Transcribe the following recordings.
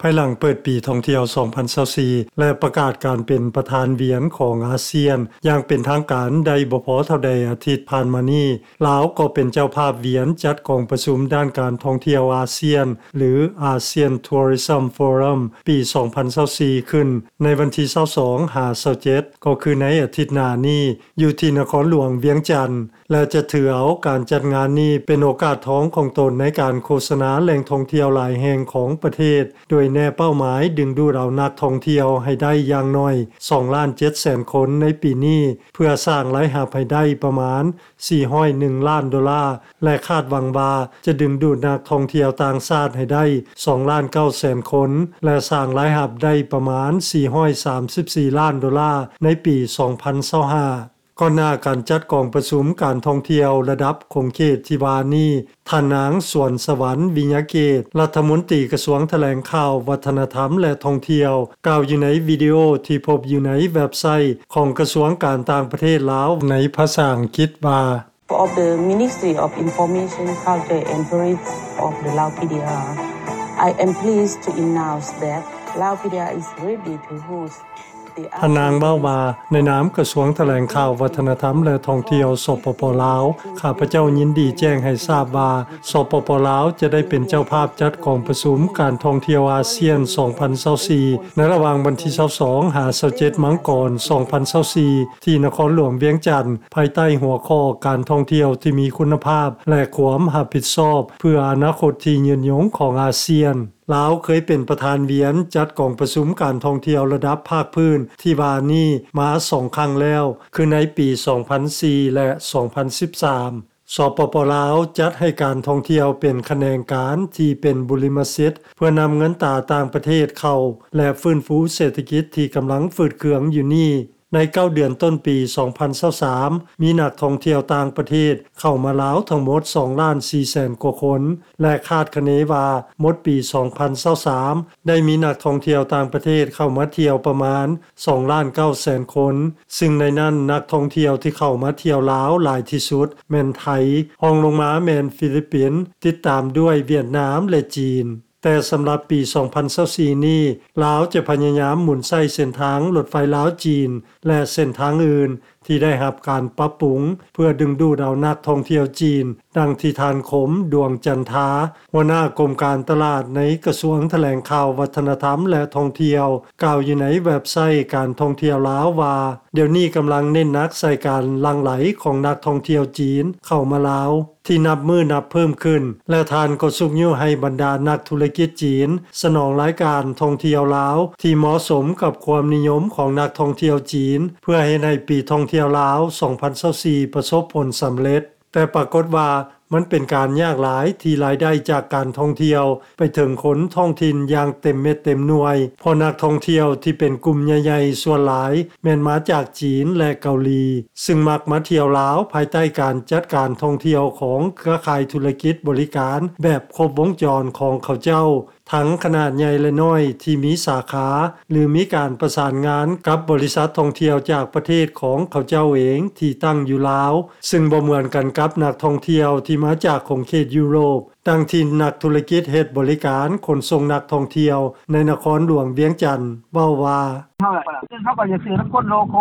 ພາຍຫຼັງເປີດປີທ່ອງທ່ຽວສອງພັນຊາວສີ່ ແລະ ປະກາດການເປັນປະທານວຽນຂອງອາຊຽນຢ່າງເປັນທາງການໄດ້ບໍ່ພໍເທົ່າໃດອາທິດຜ່ານມານີ້, ລາວກໍເປັນເຈົ້າພາບວຽນຈັດກອງປະຊຸມດ້ານການທ່ອງທ່ຽວອາຊຽນ ຫຼື ASEAN Tourism Forum ປີສອງພັນຊາວສີ່ ຂຶ້ນໃນວັນທີຊາວສອງຫາຊາວເຈັດ ກໍຄືໃນອາທິດໜ້ານີ້ ຢູ່ທີ່ນະຄອນຫຼວງວຽງຈັນ ແລະ ຈະຖືເອົາການຈັດງານນີ້ເປັນໂອກາດທອງຂອງຕົນໃນການໂຄສະນາແຫຼ່ງທ່ອງທ່ຽວຫຼາຍແຫ່ງຂອງປະເທດ, ໂດຍແນເປົ້າໝາຍດຶງດູດເອົານັກທ່ອງທ່ຽວໃຫ້ໄດ້ຢ່າງໜ້ອຍສອງລ້ານເຈັດແສນຄົນໃນປີນີ້, ເພື່ອສ້າງລາຍຮັບໃຫ້ໄດ້ປະມານສີ່ຮ້ອຍໜຶ່ງລ້ານໂດລາ, ແລະ ຄາດຫວັງວ່າຈະດຶງດູດນັກທ່ອງທ່ຽວຕ່າງຊາດໃຫ້ໄດ້ສອງລ້ານເກົ້າແສນຄົນ ແລະ ສ້າງລາຍຮັບໄດ້ປະມານສີ່ຮ້ອຍສາມສິບສີ່ລ້ານໂດລາໃນປີສອງພັນຊາວຫ້າ. ກ່ອນໜ້າການຈັດກອງປະຊຸມການທ່ອງທ່ຽວລະດັບຂົງເຂດທີ່ວ່ານີ້, ທ່ານນາງ ສວນສະຫວັນ ວິຍະເກດ ລັດຖະມົນຕີກະຊວງຖະແຫຼງຂ່າວ, ວັດທະນະທຳ ແລະ ທ່ອງທ່ຽວ ກ່າວຢູ່ໃນວິດີໂອທີ່ພົບຢູ່ໃນເວັບໄຊຂອງກະຊວງການຕ່າງປະເທດລາວໃນພາສາອັງກິດວ່າ Of the Ministry of Information, Culture and Tourism of the Lao P D R, I am pleased to announce that Lao P D R is ready to host ທ່ານນາງເວົ້າວ່າ, ໃນນາມກະຊວງຖະແຫຼງຂ່າວ, ວັດທະນະທຳ ແລະ ທ່ອງທ່ຽວ ສປປ ລາວ, ຂ້າພະເຈົ້າຍິນດີແຈ້ງໃຫ້ຊາບວ່າ ສປປ ລາວ ຈະໄດ້ເປັນເຈົ້າພາບຈັດກອງປະຊຸມການທ່ອງທ່ຽວອາຊຽນສອງພັນຊາວສີ່ ໃນລະຫວ່າງວັນທີຊາວສອງຫາຊາວເຈັດມັງກອນສອງພັນຊາວສີ່ ທີ່ນະຄອນຫຼວງວຽງຈັນ, ພາຍໃຕ້ຫົວຂໍ້ການທ່ອງທ່ຽວທີ່ມີຄຸນນະພາບ ແລະ ຄວາມຮັບຜິດຊອບເພື່ອອະນາຄົດທີ່ຍືນຍົງຂອງອາຊຽນ. ລາວເຄີຍເປັນປະທານວຽນຈັດກອງປະຊຸມການທ່ອງທ່ຽວລະດັບພາກພື້ນທີ່ວ່ານີ້ມາສອງຄັ້ງແລ້ວ, ຄືໃນປີສອງພັນສີ່ ແລະ ສອງພັນສິບສາມ. ສປປ ລາວ ຈັດໃຫ້ການທ່ອງທ່ຽວເປັນຂະແໜງການທີ່ເປັນບຸລິມະສິດ ເພື່ອນຳເງິນຕາຕ່າງປະເທດເຂົ້າ ແລະ ຟື້ນຟູເສດຖະກິດທີ່ກຳລັງຝືດເຄືອງຢູ່ນີ້. ໃນເກົ້າເດືອນຕົ້ນປີສອງພັນຊາວສາມ ມີນັກທ່ອງທ່ຽວຕ່າງປະເທດເຂົ້າມາລາວທັງໝົດສອງລ້ານສີ່ແສນກວ່າຄົນ ແລະ ຄາດຄະເນວ່າໝົດປີສອງພັນຊາວສາມ ໄດ້ມີນັກທ່ອງທ່ຽວຕ່າງປະເທດເຂົ້າມາທ່ຽວປະມານສອງລ້ານເກົ້າແສນຄົນ, ຊຶ່ງໃນນັ້ນນັກທ່ອງທ່ຽວທີ່ເຂົ້າມາທ່ຽວລາວຫຼາຍທີ່ສຸດແມ່ນໄທ, ຮອງລົງມາແມ່ນຟີລິບປິນ, ຕິດຕາມດ້ວຍຫວຽດນາມ ແລະ ຈີນ. ແຕ່ສຳລັບປີສອງພັນຊາວສີ່ນີ້, ລາວຈະພະຍາຍາມໝູນໃຊ້ເສັ້ນທາງລົດໄຟລາວ-ຈີນ ແລະ ເສັ້ນທາງອື່ນທີ່ໄດ້ຮັບການປັບປຸງ ເພື່ອດຶງດູດເອົານັກທ່ອງທ່ຽວຈີນ, ດັ່ງທີ່ທ່ານ ຄົມ ດວງຈັນທາ ຫົວໜ້າກົມການຕະຫຼາດໃນກະຊວງຖະແຫຼງຂ່າວ, ວັດທະນະທຳ ແລະ ທ່ອງທ່ຽວ ກ່າວຢູ່ໃນເວັບໄຊການທ່ອງທ່ຽວລາວວ່າ, ດຽວນີ້ກຳລັງເນັ້ນໜັກໃສ່ການຫຼັ່ງໄຫຼຂອງນັກທ່ອງທ່ຽວຈີນເຂົ້າມາລາວ ທີ່ນັບມື້ນັບເພີ່ມຂຶ້ນ ແລະ ທ່ານກໍຊຸກຍູ້ໃຫ້ບັນດານັກທຸລະກິດຈີນສະໜອງລາຍການທ່ອງທ່ຽວລາວທີ່ເໝາະສົມກັບຄວາມນິຍົມຂອງນັກທ່ອງທ່ຽວຈີນ ເພື່ອເຮັດໃຫ້ປີທ່ອງທ່ຽວລາວສອງພັນຊາວສີ່ປະສົບຜົນສຳເລັດ. ແຕ່ປາກົດວ່າມັນເປັນການຍາກຫຼາຍທີ່ລາຍໄດ້ຈາກການທ່ອງທ່ຽວໄປເຖິງຄົນທ້ອງຖິ່ນຢ່າງເຕັມເມັດເຕັມໜ່ວຍ, ເພາະນັກທ່ອງທ່ຽວທີ່ເປັນກຸ່ມໃຫຍ່ໆສ່ວນຫຼາຍແມ່ນມາຈາກຈີນ ແລະ ເກົາຫຼີ. ຊຶ່ງມັກມາທ່ຽວລາວພາຍໃຕ້ການຈັດການທ່ອງທ່ຽວຂອງເຄືອຂ່າຍທຸລະກິດບໍລິການແບບຄົບວົງຈອນຂອງເຂົາເຈົ້າ, ທັງຂະໜາດໃຫຍ່ ແລະ ນ້ອຍ ທີ່ມີສາຂາ ຫຼື ມີການປະສານງານກັບບໍລິສັດທ່ອງທ່ຽວຈາກປະເທດຂອງເຂົາເຈົ້າເອງທີ່ຕັ້ງຢູ່ລາວ, ຊຶ່ງບໍ່ເໝືອນກັນກັບນັກທ່ອງທ່ຽວທີ່ມາຈາກຂົງເຂດຢູໂຣບ. ດັ່ງທີ່ນັກທຸລະກິດເຮັດບໍລິການຂົນສົ່ງນັກທ່ອງທ່ຽວໃນນະຄອນຫຼວງວຽງຈັນເວົ້າວ່າ, ເຮົາກໍຢາກຊື້ນຳຄົນໂລໂກ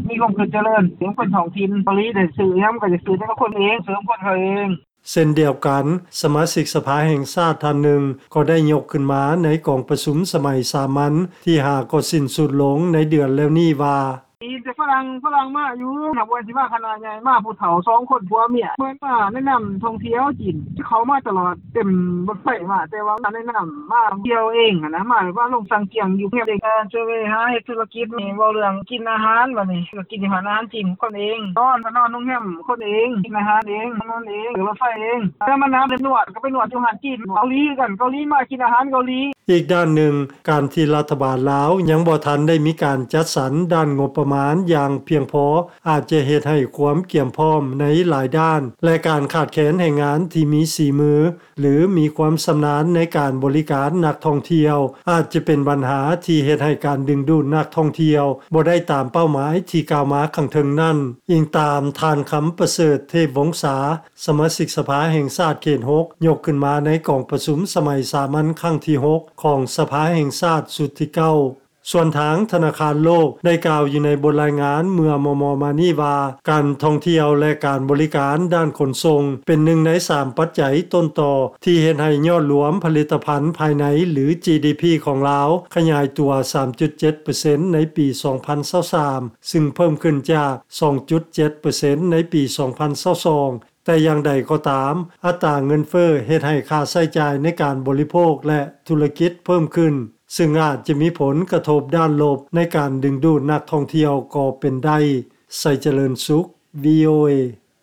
ມີຄວາມຄິດຈະເລີນ ເປັນຄົນທ້ອງຖິ່ນ ເກົາຫຼີໄດ້ຊື້ຫຍັງກໍຢາກຊື້ນຳຄົນເອງ ຊື້ນຳຄົນເຂົາເອງ. ເຊັ່ນດຽວກັນ, ສະມາຊິກສະພາແຫ່ງຊາດທ່ານໜຶ່ງກໍໄດ້ຍົກຂຶ້ນມາໃນກອງປະຊຸມສະໄໝສາມັນທີຫ້າກໍສິ້ນສຸດລົງໃນເດືອນແລ້ວນີ້ວ່າ, ມີແຕ່ຝຣັ່ງ, ຝຣັ່ງມາຢູ່, ນັບວ່າຊິມາຄະນະໃຫຍ່, ມາຜູ້ເຖົ້າສອງຄົນຜົວເມຍ, ເພິ່ນມາແນະນຳທ່ອງທ່ຽວຈີນ, ເຂົ້າມາຕະຫຼອດ, ເຕັມລົດໄຟມາ, ແຕ່ວ່າມາແນະນຳ, ມາທ່ຽວເອງຫັ້ນນະ, ມາແບບວ່າລົງສັງກຽງຢູ່ໂຮງແຮມເອງ, ຈະໄປຫາເຮັດທຸລະກິດນີ້, ເວົ້າເລື່ອງກິນອາຫານ, ບາດນີ້ກໍກິນຢູ່ຮ້ານອາຫານຈີນຄົນເອງ, ນອນກໍນອນໂຮງແຮມຄົນເອງ, ກິນອາຫານເອງ, ນອນເອງ, ລົດໄຟເອງ, ແຕ່ມານະໄປນວດ, ກໍໄປນວດຢູ່ຮ້ານຈີນ, ເກົາຫຼີຄືກັນ, ເກົາຫຼີມາກິນອາຫານເກົາຫຼີ. ອີກດ້ານໜຶ່ງ, ການທີ່ລັດຖະບານລາວຍັງບໍ່ທັນໄດ້ມີການຈັດສັນດ້ານງົບປະມານຢ ຢ່າງພຽງພໍ ອາດຈະເຮັດໃຫ້ຄວາມກຽມພ້ອມໃນຫຼາຍດ້ານ ແລະ ການຂາດແຄນແຮງງານທີ່ມີສີມື ຫຼື ມີຄວາມຊຳນານໃນການບໍລິການນັກທ່ອງທ່ຽວ ອາດຈະເປັນບັນຫາທີ່ເຮັດໃຫ້ການດຶງດູດນັກທ່ອງທ່ຽວບໍ່ໄດ້ຕາມເປົ້າໝາຍທີ່ກ່າວມາຂ້າງເທິງນັ້ນ, ອີງຕາມທ່ານ ຄຳປະເສີດ ເທບວົງສາ ສະມາຊິກສະພາແຫ່ງຊາດເຂດຫົກ ຍົກຂຶ້ນມາໃນກອງປະຊຸມສະໄໝສາມັນຄັ້ງທີຫົກ ຂອງສະພາແຫ່ງຊາດຊຸດທີເກົ້າ. ສ່ວນທາງທະນາຄານໂລກໄດ້ກ່າວຢູ່ໃນບົດລາຍງານເມື່ອມໍ່ໆມານີ້ວ່າ ການທ່ອງທ່ຽວ ແລະ ການບໍລິການດ້ານຂົນສົ່ງ ເປັນໜຶ່ງໃນສາມປັດໄຈຕົ້ນຕໍທີ່ເຮັດໃຫ້ຍອດລວມຜະລິດຕະພັນພາຍໃນ ຫຼື ຈີດີພີ ຂອງລາວ ຂະຫຍາຍຕົວສາມຈຸດເຈັດເປີເຊັນໃນປີສອງພັນຊາວສາມ ຊຶ່ງເພີ່ມຂຶ້ນຈາກສອງຈຸດເຈັດເປີເຊັນໃນປີສອງພັນຊາວສອງ. ແຕ່ຢ່າງໃດກໍຕາມ, ອັດຕາເງິນເຟີ້ເຮັດໃຫ້ຄ່າໃຊ້ຈ່າຍໃນການບໍລິໂພກ ແລະ ທຸລະກິດເພີ່ມຂຶ້ນ, ຊຶ່ງອາດຈະມີຜົນກະທົບດ້ານລົບໃນການດຶງດູດນັກທ່ອງທ່ຽວກໍເປັນໄດ້. ໄຊຈະເລີນສຸກ ວີໂອເອ.